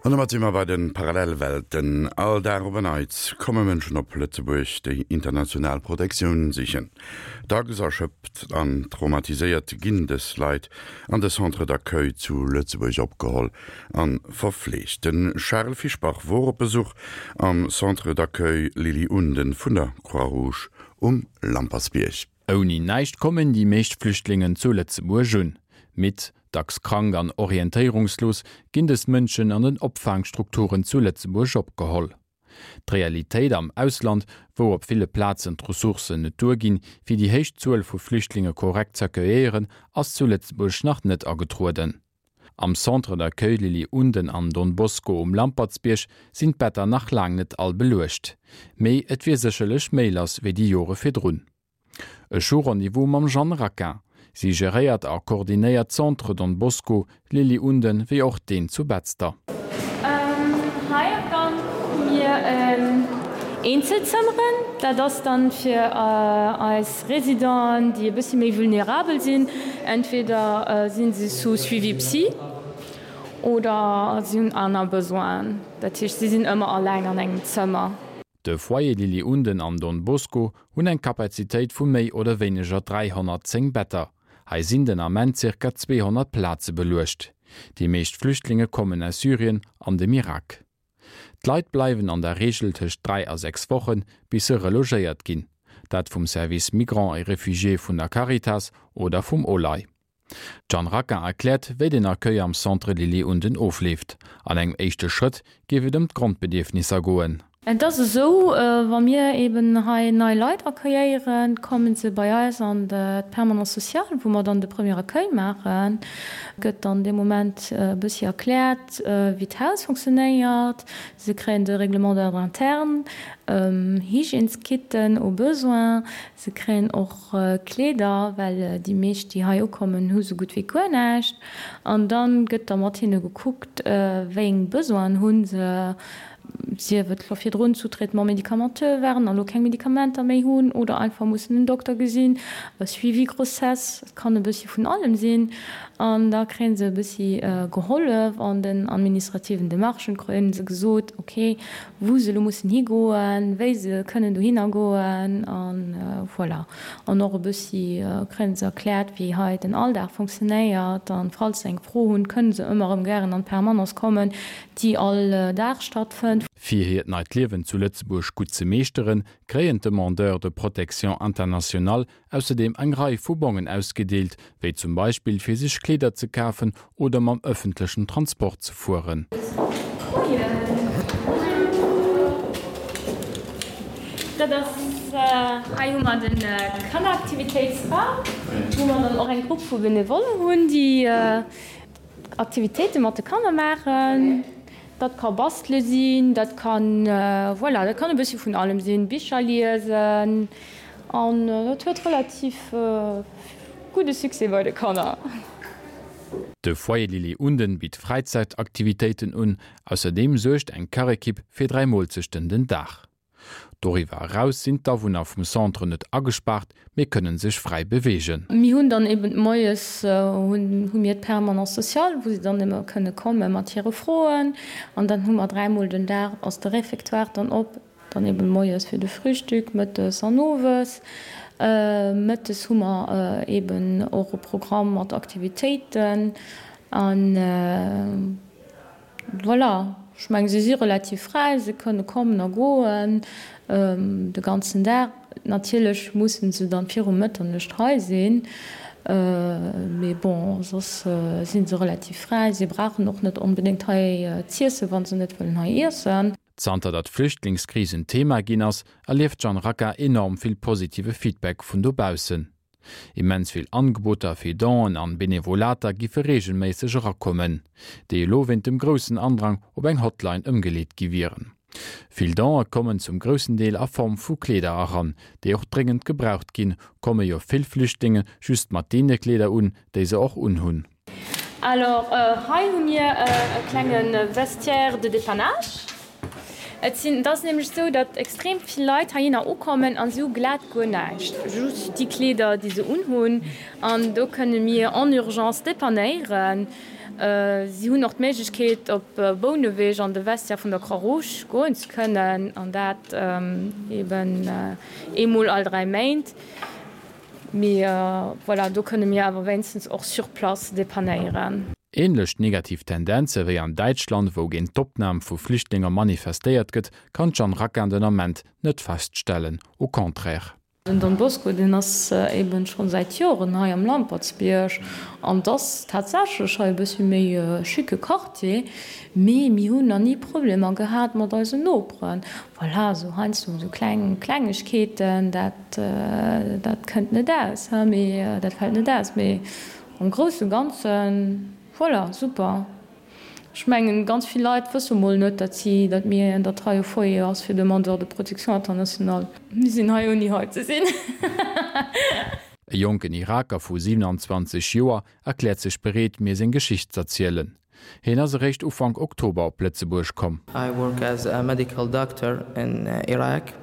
An domat si mer bei de Parallelwelten. All Dag op en Neits komme Mënschen op Lëtzebuerg, déi international Protektioun sichen. Dacks erschöpft an traumatiséiert ginn dës Leit an de Centres d'accueil zu Lëtzebuerg opgeholl a verfleegt. De Charel Fischbach wor op Besuch am Centre d'accueil Lily Unden vun der Croix-Rouge um Lampertsbierg. Ouni näischt kommen déi meescht Flüchtlingen zu Lëtzebuerg un. Midd, dacks krank an orientéierungslos ginn dës Mënschen an den Opfaangstrukturen zu Lëtzebuerg opgeholl. D'Realitéit am Ausland, wou op ville Plazen d'Ressourcen net duerginn, fir déi héich Zuel vu Flüchtlinge korrekt z'accueilléieren, ass zu Lëtzebuerg nach net agetrueden. Am Centre d'accueil Lily Unden an Don Bosco um Lampertsbierg sinn d'Better nach laang net all beluecht. Mee et wier sécherlech méi lass wéi déi Jore virdrun. Ech hu Rendez-vous mam Jeanne Raquin. Si geréiert a koordinéiert d'Centre Don Bosco, Lily Unden wéi och deen zu Betzder. Hei am Gank hu mir Eenzelzëmmeren. Dat ass dann fir eis Résidenten, déi e bëssi méi vulnerabel sinn, entweder si se sous suivi psy oder si hunn aner Besoinen. Dat heescht, si sinn ëmmer alleng an engem Zëmmer. De Foyer Lily Unden an Don Bosco hunn eng Kapazitéit vu méi oder wéineger 310 Better. Hei sinn den Ament zirka 200 Plaze beluecht. Déi meescht Flüchtlinge kommen aus Syrien an dem Irak. D'Leit bleiwen an der Reegel tëscht 3 a 6 Wochen, bis se relogéiert ginn. Dat vum Service Migrants et Réfugiés vun der Caritas oder vum OLAI. D'Jeanne Raquin erkläert, wéi den Accueil am Centre Lily Unden ofleeft. An engem éischte Schrëtt géif et ëm d'Grondbedierfnisser goen. Et ass esou, wa mir eben hei nei Leit accueilléieren, komme se bei eis an d'Permanence sociale, wou mer dann de Premier Accueil maachen. Gëtt dann dee Moment e bëssi erkläert, wéi d'Haus fonctionnéiert. Se kréien de Règlement d'ordre interne, Hygièneskitten au besoin. Se kréien och Kleeder, well déi meescht, déi hei ukommen, hu sou gutt wéi guer näischt. An da gëtt da mat hinne gekuckt, wéi eng Besoinen hu se, sief et wa virdrun sous traitement médicamenteux waren a lo keng Medikamenter méi hunn oder einfach mussen en Dokter gesinn, e Suivi grossesse, et kann e bëssi vun allem sinn. An da kréie se e bëssi gehollef an den administrativen Demarchen, kréie se gesot, ok, wou se elo mussen higoen, wéi se kënnen dohinner goen a voilà. An och e bëssi kréie se erkläert, wéi hei den Alldag funktionéiert. A falls se eng Fro hunn, kënne se ëmmer erëm gären an d'Permanence kommen. déi all Dag stattfënnt. Fir hiert neit Liewen zu Lëtzebuerg gutt ze meeschteren, kréien d'Demandeurs de protection internationale ausserdeem eng Rei vu Bongen ausgedeelt, wéi zum Beispill fir sech Kleeder ze kafen oder mam ëffentlechen Transport ze fueren. Moien. Dat ass, hei hu mer de Kanneraktivitéitsraum, wou mer dann och eng Grupp vu Benevollen hunn, déi Aktivitéite mat de Kanner maachen. Dat ka bastele sinn, dat kann, voilà, dat kann e bëssche vun allem sinn, Bicher liesen an dat huet relativ gudde Succès bei de Kanner. De Foyer Lili Unden bitt Fräizäitaktivitéiten un. Ausserdeem suergt eng Kachekipp fir 3 Moolzechten den Dag. Doriwwer eraus sinn d'Awunner vum Centre net agespaart, mee kënnen sech fräi beweegen. Mir hunn dann eben moies hu mir d'Permanence sociale, wou se dann ëmmer kënne komme mat hire Froen. An dann hu mer dräimol den Dag ass de Réfectoire dann op, dann eben moies fir de Frühstück, mëttes an owes. Mëttes hu mer eben och e Programm mat Aktivitéiten an. Voilà, ech mengen, se si relativ fräi, se kënne kommen a goen de ganzen Dag. Natierlech musse se dann viru Mëtternuecht hei sinn, mee bon, soss si se relativ fräi. Si brauchen och net onbedéngt hei z'iessen, wa se net wëllen hei iessen. Zanter datt d'Flüchtlingskris en Thema ginn ass, erlieft d'Jeanne Racca enorm vill positive Feedback vun dobaussen. Immens vill Angeboter fir Donen an Benevolater giffe reegelméisseg erakommen, déi elo wéint dem groussen Andrang op eng Hotline ëmgeleet gi wieren. Vill Donë kommen zum groussen Deel a Form vu Kleeder eran, déi och dréngend gebraucht ginn, komme jo vill Flüchtlinge just mat deene Kleeder un, déi se och unhunn. Alors hei hu mir e klenge Vestiaire de dépannage. Et sinn, et ass nämlech esou, datt extrem vill Leit heihinner ukommen a si hu glat guer näischt, just déi Kleeder, déi se unhunn. An do kënne mir en urgence depannéieren. Si hunn och d'Méiglechkeet, op Bouneweg an de Vestiaire vun der Croix-Rouge goen ze kënnen, an dat eben eemol all 3 Méint. Mee voilà, do kënne mir awer wéinstens och sur place depannéieren. Ähnlech negativ Tendenze wéi an Däitschland, wou géint d'Opnam vu Flüchtlinger manifestéiert gëtt, kann d'Jeanne Raquin den Ament net feststellen, au contraire. Den Don Bosco, deen ass eben scho säit Joren hei am Lampertsbierg an 't ass tatsächlech hei e bëssi méi e schicke Quartier, mee mir hunn nach ni Problemer gehat mat eisen Noperen. Voilà, esou heiansdo esou kleng Klengegkeeten, dat dat kënnt net aus, he, mee dat fält net aus, mee am grousse Ganzen, voilà, super. Ech mengen, ganz vill Leit wësse mol net, datt si, datt mir, datt hei e Foyer ass fir Demandeurs de protection internationale. Mir sinn hei ouni hei ze sinn. E jonken Iraker vu 27 Joer erkläert sech bereet, mir seng Geschicht z'erzielen. Hien ass eréischt Ufank Oktober op Lëtzebuerg komm. I work as a medical doctor in Iraq.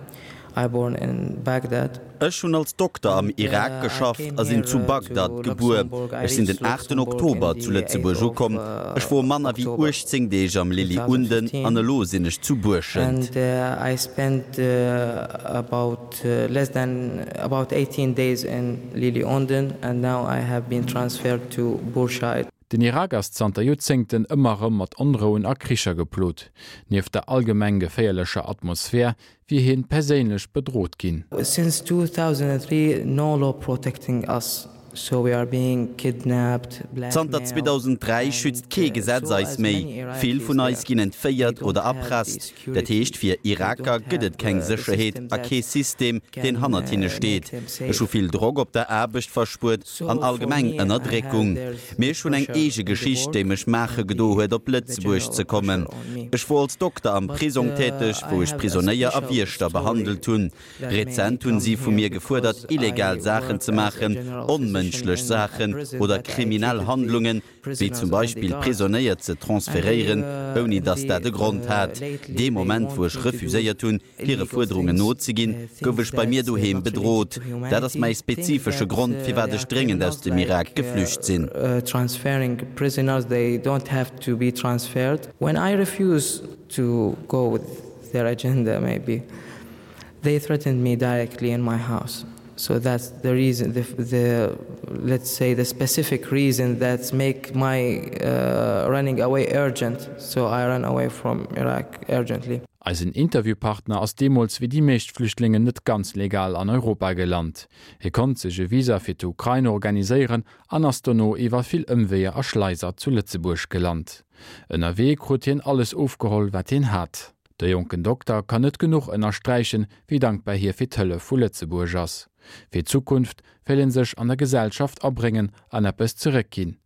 I born in Baghdad. Ech hunn als Dokter am Irak geschafft a sinn zu Bagdad gebuer. Ech sinn den aachten Oktober zu Lëtzebuerg ukomm. Ech wor manner wéi 18 Deeg am Lily Unden an elo sinn ech zu Buerschent. And I spent about less than about 18 days in Lily Unden and now I have been transferred to Bourscheid. Den Irak ass zanter Joerzéngten ëmmer erëm mat Onrouen a Kricher geplot. Nieft der allgemeng geféierlecher Atmosphär wier hien perséinlech bedrot ginn. Since 2003 no law protecting us, so we are being kidnapped, Zanter blackmailed 2003 schützt kee and Gesetz so eis as méi. many Vill Iraqis vun eis there, ginn we entféiert don't oder have the erpresst. Dat security, heescht, fir we Iraker don't gëtt et have keng the Sécherheet system a that kee System, deen can hannert hinne make steet. them Ech hu safe. vill Drock op der Aarbecht verspuert an So for allgemeng me I have Ënnerdréckung. there's Mee the ech hunn eng pressure eege in the Geschicht, déi work mech maache and gedo the huet, op the Lëtzebuerg general ze kommen. pressure on me. Ech wor als Dokter am But Prisong täteg, I wou ech have a Prisonéier a special Wiechter story behandelt hunn. that made me Rezent hunn come si vu here mir gefuerdert, because I illegal Saachen work ze as a maachen, general physician onmënschlech in a Saachen prison oder that I kriminell treated the Handlungen, wéi zum prisoners and the Beispill guards. Prisonéier ze And they transferéieren, ouni datt the dat e Grond hat. lately Dee they Moment, wou want ech me to do refuséiert hunn, hire illegal Fuerderungen things, nozeginn, gouf things ech bei mir that doheem not related bedrot. to Dat ass humanity, mäi things spezifesche that Grond, firwat they ech are dréngend aus criminals dem Irak like geflücht sinn. transferring prisoners, they don't have to be transferred. When I refuse to go with their agenda maybe, they threatened me directly in my house. So that's the reason the, the let's say the specific reason that make my uh, running away urgent. So I ran away from Iraq urgently. Eisen Interviewpartner ass deemools wéi déi meescht Flüchtlingen net ganz legal an Europa gelant. Hie konnt sech e Visa fir d'Ukrain organiséieren an ass dono iwwer vill Ëmweeër a Schleiser zu Lëtzebuerg gelant. Ënnerwee krut hien alles ofgeholl, wat hien hat. De jonken Dokter kann net genuch ënnersträichen, wéi dankbar hie fir d'Hëllef vu Lëtzebuerg ass. Fir d'Zukunft wéll en sech an der Gesellschaft abréngen an eppes zeréckginn.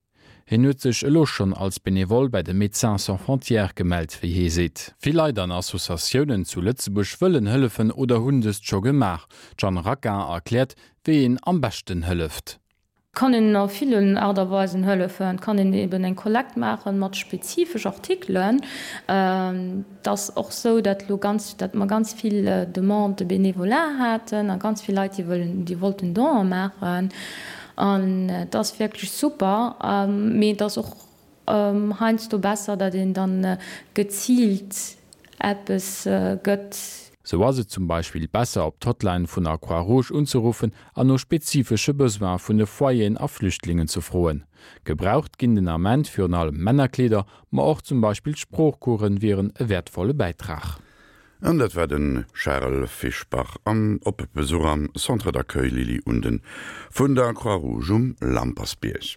Hien huet sech elo schonn als Benevole bei de Médecins Sans Frontières gemellt, wéi hie seet. Vill Leit an Associatiounen zu Lëtzebuerg wëllen hëllefen oder hunn dëst scho gemaach. D'Jeanne Raquin erkläert, wéi een am beschten hëlleft. Kann een a villen Aart a Weisen hëllefen. Et kann een eben eng Kollekt maachen mat spezifesch Artikelen. Et ass och sou, datt elo ganz, datt mer ganz vill Demandes de bénévolat haten a ganz vill Leit, déi wëllen, déi wollten Donen maachen. An et ass wierklech super, mee et ass och heiansdo besser, datt een dann geziilt eppes gëtt. Sou ass et zum Beispill besser op d'Hotline vun der Croix Rouge unzeruffen an no spezifesche Besoine vun de Foyeren a Flüchtlingen ze froen. Gebraucht ginn den Ament virun allem Männerkleeder, ma och zum Beispill Sproochcoursen wieren e wäertvolle Bäitrag. An dat war de Charel Fischbach am op Besuch am Centre d'accueil Lily Unden vun der Croix-Rouge um Lampersbierg.